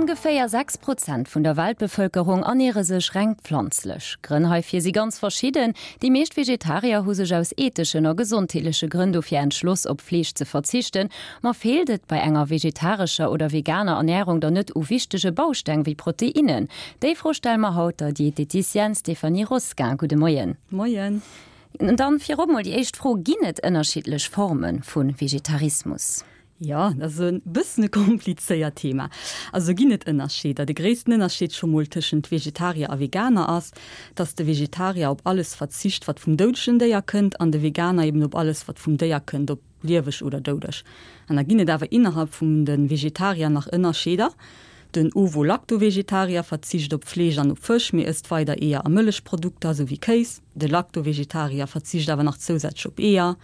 Ongeféier 6 Prozent vun der Weltbevëlkerung erniere sech reng pflanzlech. Grënn heifir si ganz verschidden. Déi meescht Vegetarier hu sech aus etheschen a gesondheetleche Grënn dofir entschloss, op Fleesch ze verzichten. Ma feelt et bei enger vegetarescher oder veganer Ernärung dann net u wichtege Bausteng wéi Proteinnen? Déi Fro stelle mer haut der Dieteticienne Stéphanie Rosquin. Gudde Moien. Moien. Dann virop mol déi éischt Fro, Ginn et ënnerschiddlech Forme vu Vegetarismus? Jo, dat ass e bëssen e komplizéiert Thema. Also ginn et Ënnerscheeder. De gréissten Ënnerscheed scho mol tëschent Vegetarier a Veganer ass, dass de Vegetarier op alles verzicht, wat vum doudegen Déier kënnt, an de Veganer eben op alles, wat vum Déier kënnt, ob lieweg oder doudeg. An da ginn et awer innerhalb vun de Vegetarier nach Ënnerscheeder. Den Ovo-Lacto-Vegetarier verzicht op Fleesch an op Fësch, mee ësst weider Eeër a Mëllechprodukter, sou wéi Kéis. De Lacto-Vegetarier verzicht awer nach zousätzlech op Eeër,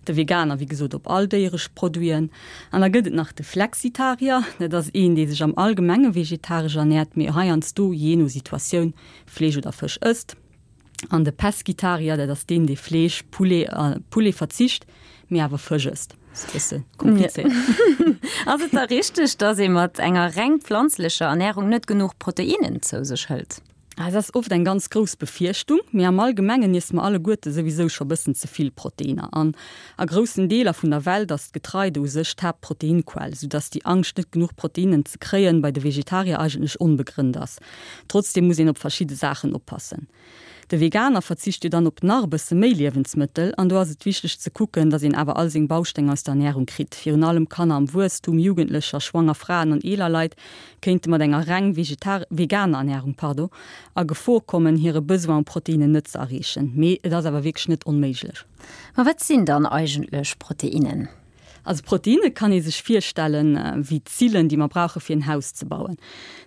de Veganer wéi gesot op all déieresch Produiten. An da gëtt et nach de Flexitarier, dat ass een, dee sech am Allgemenge vegetaresch ernäert, mee heiansdo, jee no Situatioun, Fleesch oder Fësch ësst. An de Pescitarier, dat ass deen, dee Fleesch, Poulet a Poulet verzicht, mee awer Fësch ësst. Ass e bësse komplizéiert. Ass et da richteg, datt ee mat enger reng pflanzlecher Ernärung net genuch Proteinnen zou sech hëlt? Et ass oft eng ganz grouss Befierchtung, mee am Allgemengen iesse mer alleguerte souwisou scho bëssen ze vill Proteiner. An a groussen Deeler vun der Welt ass d'Getreide u sech d'Haaptproteinquell, soudass déi Angscht net genuch Proteinen ze kréien bei de Vegetarier eigentlech onbegrënnt ass. Trotzdeem muss een op verschidde Saachen oppassen. De Veganer verzicht jo dann op nach e bësse méi Liewensmëttel an do ass et wichteg ze kucken, dass een awer all seng Bausteng aus der Ernärung kritt. Virun allem Kanner am Wuesstum, Jugendlecher, schwanger Fraen an eeler Leit kéinte mat enger reng vegetar veganer Ernärung, pardon, a Gefor kommen, hire Besoin u Proteinnen net ze erreechen. Mee et ass awer wierklech net onméiglech. Ma wat sinn dann eigentlech Proteinnen? Also Proteinne kann ee sech virstellen wéi d'Zillen, déi mer brauche fir en Haus ze bauen.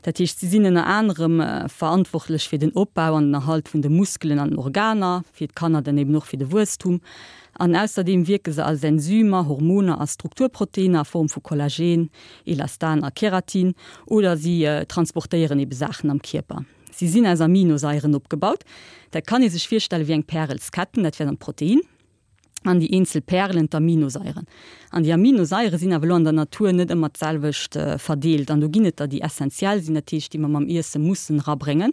Dat heescht, si sinn ënner anerem verantwortlech fir den Opbau an den Erhalt vun de Muskelen an den Organer, fir d'Kanner dann eben och fir de Wuesstum. An ausserdeem wierke se als Enzymer, Hormoner a Strukturproteiner a Form vu Kollagen, Elastan a Keratin oder si transportéieren ebe Saachen am Kierper. Si sinn aus Aminosaieren opgebaut. Dat kann ee sech virstelle wéi eng Pärelsketten, dat wär dann d'Protein an déi eenzel Pärelen d'Aminosaieren. An déi Aminosaiere sinn awer elo an der Natur net ëmmer d'selwecht verdeelt an do ginn et der, déi essentiell sinn, dat heescht déi mer mam Iesse mussen erabréngen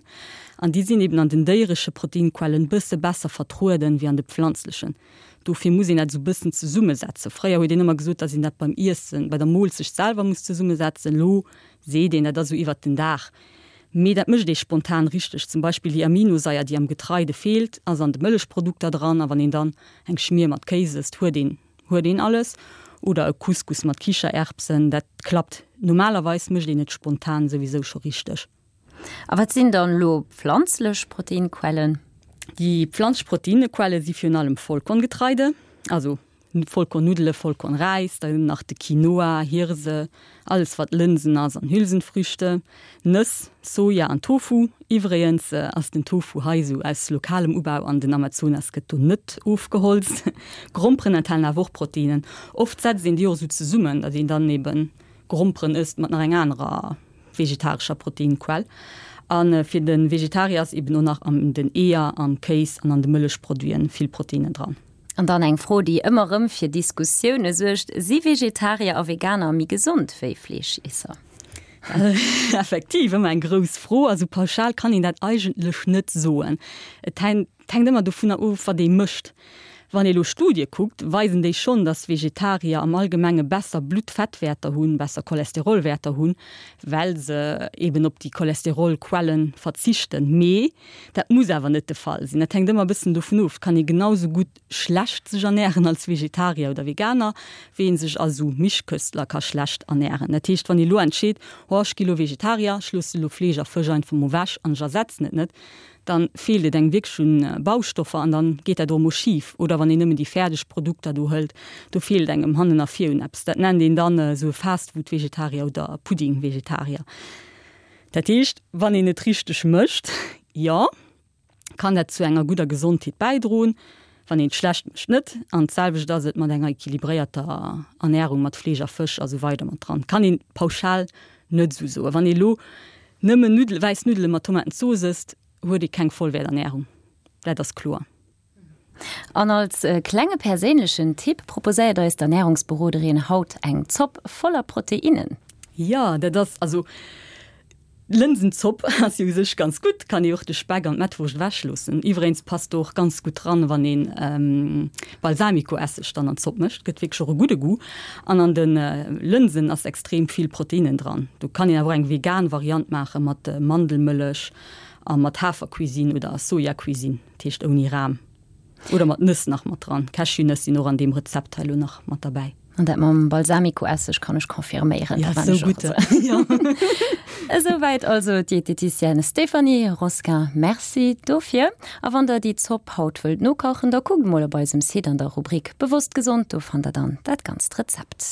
an déi sinn eben an den déieresche Proteinquellen bësse besser vertrueden wéi an de pflanzlechen. Dofir muss een dat esou bëssen zesummesetzen. Fréier huet een ëmmer gesot, datt een dat beim Iessen, bei der Moolzecht selwer muss zesummesetzen. Elo seet een, dat ass esou iwwert den Dag. Mee dat mécht ee spontan richteg. Zum Beispill déi Aminosaier, déi am Getreide feelt, ass an de Mëllechprodukter dran. A wann een dann eng Schmier mat Kéis ësst, huet een huet een alles. Oder e Couscous mat Kichererbsen, dat klappt. Normalerweis mécht een et spontan souwisou scho richteg. A wat sinn dann elo pflanzlech Proteinquellen? Déi pflanzlech Proteinquelle si virun allem Vollkorngetreide, also Vollkornnuddele, Vollkornräis, dann nach de Quinoa, Hirse, alles wat Lënsen ass an Hülsenfrüchte, Nëss, Soja an Tofu. Iwwregens ass den Tofu hei esou aus lokalem Ubau an den Amazonas gëtt do net ofgeholzt. Gromperen enthalen awer och Proteinen. Oft setzt een déi och esou zesummen, datt een dann eben Gromperen ësst mat nach enger anerer vegetarescher Proteinquell. A fir de Vegetarier ass eben och nach an den Eeër, am Kéis an an de Mëllechproduiten vill Proteinen dran. An dann eng Fro, déi ëmmer rëm fir Diskussioune suergt, Si Vegetarier a Veganer méi gesond wéi Fleeschiesser? Effektiv ëmmer eng grouss Fro. Also pauschal kann een dat eigentlech net soen. Et hänkt ëmmer dovunner of, wat ee mécht. Wann ee lo Studie kuckt, weisen déi schonn, datt Vegetarier am Allgemenge besser Bluttfettwäerter hunn, besser Cholesterolwäerter hunn, well se eben op déi Cholesterolquellen verzichten. Mee dat muss awer net de Fall sinn. Dat hänkt ëmmer e bëssen dovun of. Et kann ee genau sou gutt schlecht sech ernären als Vegetarier oder Veganer, wéi ee sech als esou Mischköstler ka schlecht ernären. Dat heescht, wann ee lo entscheet, oh ech gi lo Vegetarier, ech loosse lo Fleesch a Fësch einfach mol ewech an ech ersetzen et net, dann feelt et engem wierklech un Baustoffer an dann geet dat och emol schif. Oder wann een nëmmen déi fäerdeg Produkter do hëlt, do feelt engem hannen a vir un eppes. Dat nennt een dann esou e Fastfood-Vegetarier oder Pudding-Vegetarier. Dat heescht, wann een et richteg mécht, jo, kann dat zu enger gudder Gesondheet bäidroen, wann een et schlecht mécht net. An d'selwecht ass et mat enger equilibréierter Ernärung mat Fleesch a Fësch a sou weider mat dran. Kann een pauschal net esou soen. Wann ee lo Nëmmen Nuddele, wäiss Nuddele mat Tomatenzooss ësst, huet ee keng Vollwäerternärung, dat ass kloer. An als klenge perséinlechen Tipp proposéiert eis d'Ernärungsberoderin haut eng Zopp voller Proteinnen. Jo, dat ass also. D'Lënsenzopp ass jo u sech ganz gutt, kann ee och de Speck an d'Mettwurscht ewech loossen. Iwweregens passt do och ganz gutt dran, wann een Balsamicoesseg dann an d'Zopp mécht, gëtt wierklech och e gudde Goût. An an de Lënsen ass extrem vill Proteinnen dran. Do kann een awer och eng vegan Variant maache mat Mandelmëllech a mat Hafercuisine oder Sojacuisine, dat heescht ouni Ram. Oder mat Nëss nach mat dran. Cashewnëss sinn och an deem Rezept hei elo nach mat derbäi. An dat mam Balsamicoesseg kann ech confirméieren. Ja, sou gutt. Esouwäit also d'Dieteticienne Stéphanie Rosquin. Merci dofir. A wann der déi Zopp haut wëllt nokachen, da kuckt mol op eisem Site an der Rubrik Bewosst gesond, do fannt der dann dat ganzt Rezept.